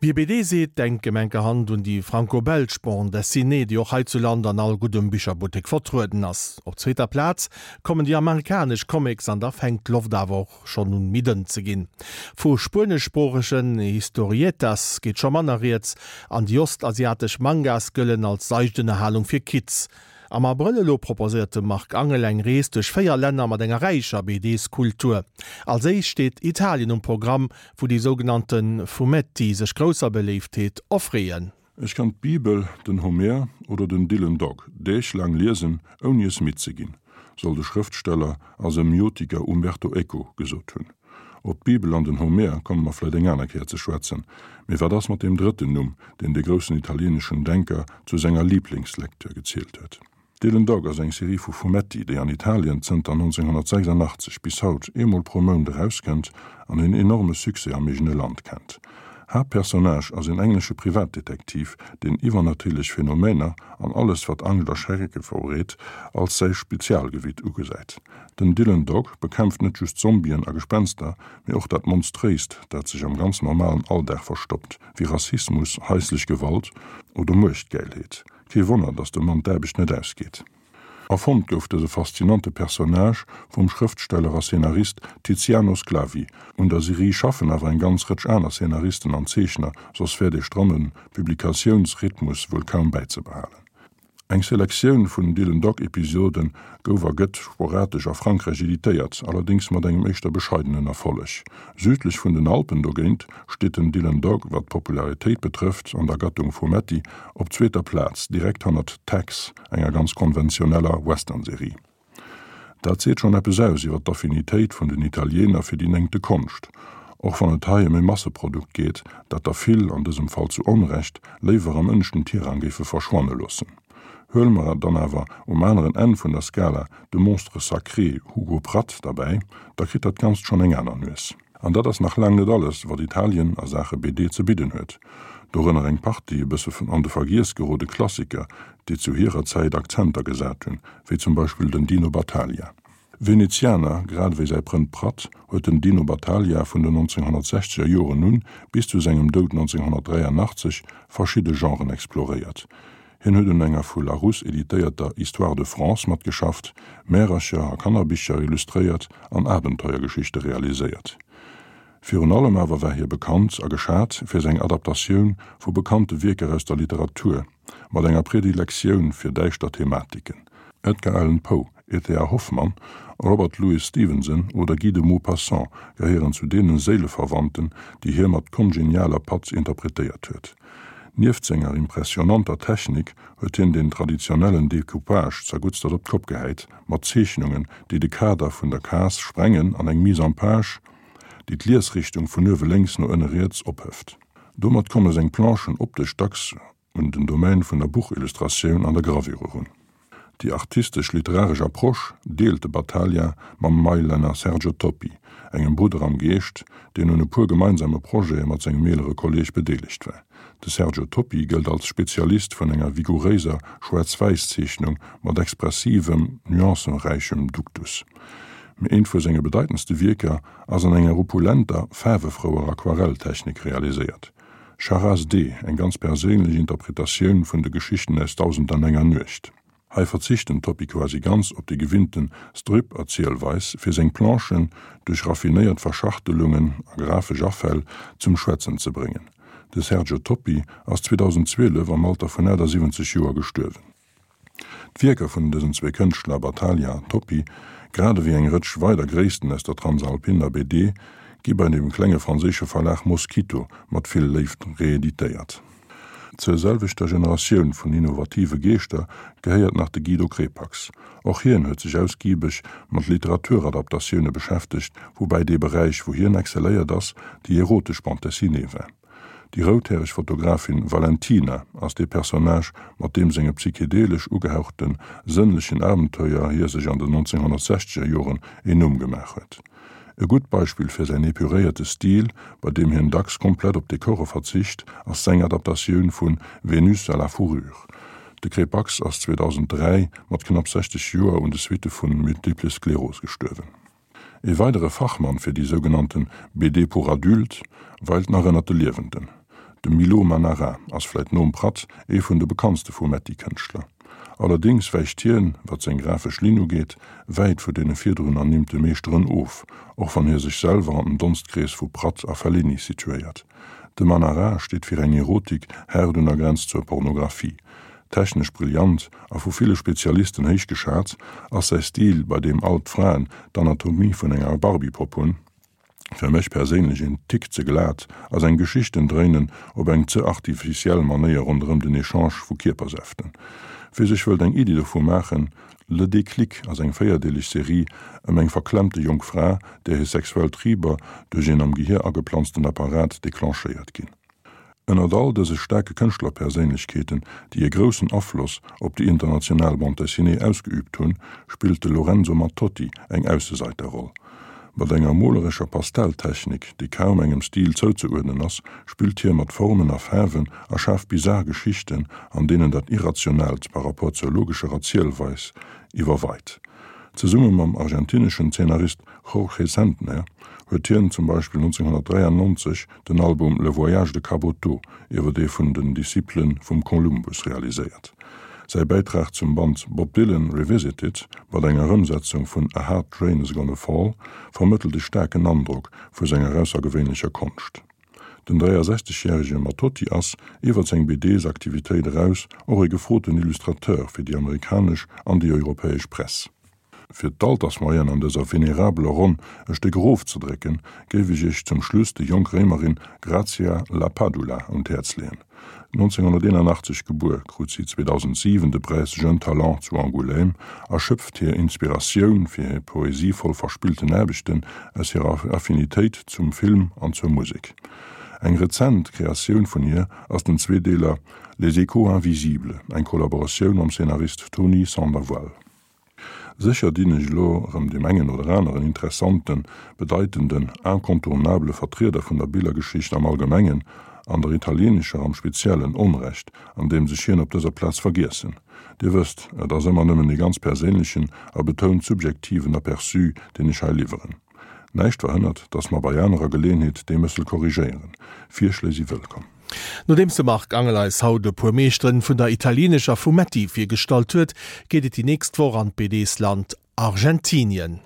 Wie BD seet, denkt gemenkerhand un déi franco-belsch Bande dessinée, déi och heizuland an all guddem Bicherbuttek vertrueden ass. Op zweeter Plaz kommen déi amerikanesch Comics an da fänkt d'Loft awer och schonn un méi dënn ze ginn. Vu spueneschsproochegen Historietas geet scho manner rieds an déi ostasiatesch Mangas gëllen als seicht Ënnerhalung fir Kids. Am Abrëll elo proposéiert de Marc Angel eng Rees duerch 4 Länner mat enger räicher BDs-Kultur. Als éischt steet Italien um Programm, wou déi sougenannte Fumetti sech grousser Beléiftheet erfreeën. Ech kann d'Bibel, den Homer oder den Dylan Dog Deeg laang liesen, ouni es midd ze ginn, soll de Schrëftsteller a Semiotiker Umberto Eco gesot hunn. Op d'Bibel an den Homer komme mer vläit eng aner Kéier ze schwätzen, mee wat ass mat deem drëtten Numm, deen de groussen italieeneschen Denker zu senger Liblingslektür gezielt huet? Dylan Dog ass eng Serie vu Fumetti, déi an Italien zënter 1986 bis haut eemol pro Mount erauskënnt an en enorme Succès am eegene Land kennt. Haaptpersonnage ass en englesche Privatdetektiv, deen iwwernatierlech Phänomener an alles wat Angscht a Schrecke verbreet, als säi Spezialgebitt ugesäit. Den Dylan Dog bekämpft net just Zombien a Gespenster, mee och dat Monstréist, dat sech am ganz normalen Alldag verstoppt, wéi Rassismus, haislech Gewalt oder Muechtgäilheet. Kee Wonner, datt dem Mann d'Aarbecht net ausgeet. Erfonnt gouf dëse faszinante Personnage vum Schrëftsteller a Szenarist Tiziano Sclavi. Un der Serie schaffen awer eng ganz Rëtsch aner Szenaristen an Zeechner, soss wär dee stramme Publikatiounsrhythmus wuel kaum bäizebehalen. Eng Selektioun vun Dylan Dog Episode gouf a gëtt sporadesch a Frankräich editéiert, allerdéngs mat engem éischter bescheidenen Erfolleg. Südlech vun den Alpen dogéint steet den Dylan Dog, wat d'Popularitéit betrëfft, an der Gattung Fumetti op zweeter Plaz, direkt hannert Tex, enger ganz konventioneller Western-Serie. Dat seet schonn eppes aus iwwer d'Affinitéit vun den Italiener fir déi néngte Konscht, och wann et hei ëm e Masseprodukt geet, dat der vill, an dësem Fall zu Onrecht, léiwer am ënneschten Tirang géife verschwanne loossen. Huele mer dann awer um aneren Enn vun der Skala de Monstre sacré Hugo Pratt derbäi, da kritt dat Ganzt schonn eng aner Nues. An dat ass nach laang net alles, wat Italien a Saache BD ze bidden huet. Dorënner eng Partie e bësse an de Vergiess gerode Klassiker, déi zu hirer Zäit Akzenter gesat hunn, wéi zum Beispill den Dino Battaglia. Venezianer, grad ewéi säi Prënd Pratt, huet den Dino Battaglia vun den 1960er Joren un bis zu sengem Doud 1983 verschidde Genren exploréiert. Hien huet un enger vu Larousse editéierter Histoire de France matgeschafft, Märercher a Kannerbicher illustréiert an Abenteuergeschichte realiséiert. Virun allem awer war hie bekannt a geschat fir seng Adaptatioun vu bekannte Wierker aus der Literatur, mat enger Predilektioun fir däischter Thematiken. Edgar Allan Poe, E. T. A. Hoffmann, Robert Louis Stevenson oder Guy de Maupassant gehéieren zu deene Séileverwandten, déi hie mat kongenialer Patz interpretéiert huet. Nieft senger impressionanter Technik huet hien den traditionellen Decoupage zerguttstert op d'Kopp gehäit, mat Zeechnungen, déi de Kader vun der Case sprengen an eng Mise en page, déi d'Liesrichtung vun uewe lénks no ënne riets ophëft. Domat komme seng Planchen optesch dacks un den Domaine vun der Buchillustratioun an der Gravure erun. Déi artistesch-literaresch Approche deelt de Battaglia mam Mailänner Sergio Toppi, engem Brudder am Geescht, deen un e puer gemeinsame Projete mat sengem eelere Kolleeg bedeelegt war. De Sergio Toppi gëllt als Spezialist vun enger vigouréiser Schwaarz-Wäiss-Zeechnung mat expressivem, nuancenräichem Duktus. Mee eent vu senge bedeitendste Wierker ass an enger opulenter, faarwefrouer Aquarelltechnik realiséiert. Charas-D, eng ganz perséinlech Interpretatioun vun de Geschichten aus Dausendanenger Nuecht. Hei verzicht den Toppi quasi ganz op déi gewinnten Strip-Erzielweis, fir seng Planchen duerch raffinéiert Verschachtelungen a grafesch Afäll zum Schwätzen ze bréngen. De Sergio Toppi ass 2012 am Alter vun 78 Joer gestuerwen. D'Wierker vun dësen zwee Kënschtler, Battaglia an Toppi, grad ewéi eng Rëtsch weider Gréissten aus der Transalpiner BD, gi bei dem klenge franséische Verlag Moskito mat vill Léift reeditéiert. Zur selwechter Generatioun vun innovative Geeschter gehéiert nach de Guido Crepax. Och hien huet sech ausgibeg mat Literaturadaptatioune beschäftegt, woubäi dee Beräich, wou hien excelléiert ass, déi erotesch Bande dessinée war. Déi routhäreg Fotografin Valentina ass dee Personnage, mat deem senge psychedelesch ugehauchte sënnlechen Abenteuer hie sech an den 1960er Joren een Numm gemaach huet. E gutt Beispill fir säin epuréierte Stil, bei deem hien dacks komplett op Dekore verzicht, ass seng Adaptatioun vu Vénus à la fourrure. De Crepax ass 2003 mat knapp 60 Joer un de Suitte vu Multiple Sklerose gestuerwen. E weidere Fachmann fir déi sougenannten BD pour adultes weilt nach ënnert de Liewenden. De Milo Manara ass vläit nom Pratt ee vun de bekanntste Fumetti-Kënschtler. Allerdéngs wäicht hien, wat seng grafesch Linn ugeet, wäit vu deene virdrun ernimmte Meeschteren of, och wann hie sech selwer an den Donstkrees vu Pratt a Fellini situéiert. De Manara steet fir eng Erotik haart un der Grenz zur Pornographie. Technesch brillant a vu ville Spezialisten héich geschat, ass säi Stil, bei deem all d'Fraen d'Anatomie vun enger Barbie-Popp hunn, fir mech perséinlech een Tick ze glat a seng Geschichten dréinen op eng ze artificiell Manéier ronderëm den Echange vu Kierpersäften. Wie sech wëllt eng Iddi dovu maachen, Le Déclic ass eng véierdeeleg Serie ëm eng verklemmte jonk Fra, där hir sexuell Triber duerch een am Gehier ageplanzten Apparat declenchéiert ginn. Ënnert all dëse staarke Kënschtlerperséinlechkeeten, déi e groussen Afloss op déi international Bande dessinée ausgeüübt hunn, spillt de Lorenzo Mattotti eng Ausseseiterroll. Mat enger molerescher Pastelltechnik, déi kaum engem Stil zouzeuerdnen ass, spillt hie mat Formen a Faarwen a schaaft bizar Geschichten, an deenen dat Irrationaalt par rapport zur logescher Erzielweis iwwerweit. Zesumme mam argentineschen Zeenarist Jorge Sentner huet hien zum Beispill 1993 den Album Le Voyage de Caboto iwwer ee vun den Discipele vum Columbus realiséiert. Säi Bäitrag zum Band Bob Dylan Revisited, mat enger Ëmsetzung vun A Hard Rain Is Gonna Fall, vermëttelt e staarken Androck vu senger aussergewéinlecher Konscht. Den 63 järege Mattotti ass, iwwer seng BDs-Aktivitéit eraus, och e gefroten Illustrateur fir déi amerikanesch an déi europäesch Press. Fir d'Altersmoyenne an dëser venerabeler Ronn e Stéck erofzedrécken, géif ech Iech zum Schluss déi jonk Réimerin Grazia La Padula un d'Häerz leeën. 1981 gebuer, krut si 2007 de Präis Jeune Talent zu Angoulême a schöpft hir Inspiratioun fir hir poesievoll verspillten Aarbechten aus hirer Affinitéit zum Film an zur Musek. Eng rezent Kreatioun vun hir ass den Zweedeeler Les échos invisibles, eng Kollaboratioun mam Szenarist Tony Sandoval. Sécher dinn ech elo erëm deem engen oder aneren interessanten, bedeitenden, incontournabele Vertrieder vun der Billergeschicht am Allgemengen an der italienescher am Speziellen Onrecht, andeems ech hien op dëser Plaz vergiessen. Dir wësst, et ass ëmmer nëmmen ee ganz perséinlechen a betount subjektiven Aperçu, deen ech hei liwweren. Näischt verhënnert, dass mer bei anerer Geleeënheet dee Mëssel korrigéieren. Virschléi si wëllkomm. Nodeems de Marc Angel eis haut e puer Meeschteren vun der italienescher Fumetti virgestallt huet, geet et déi nächst Woch an d'BDs-Land Argentinien.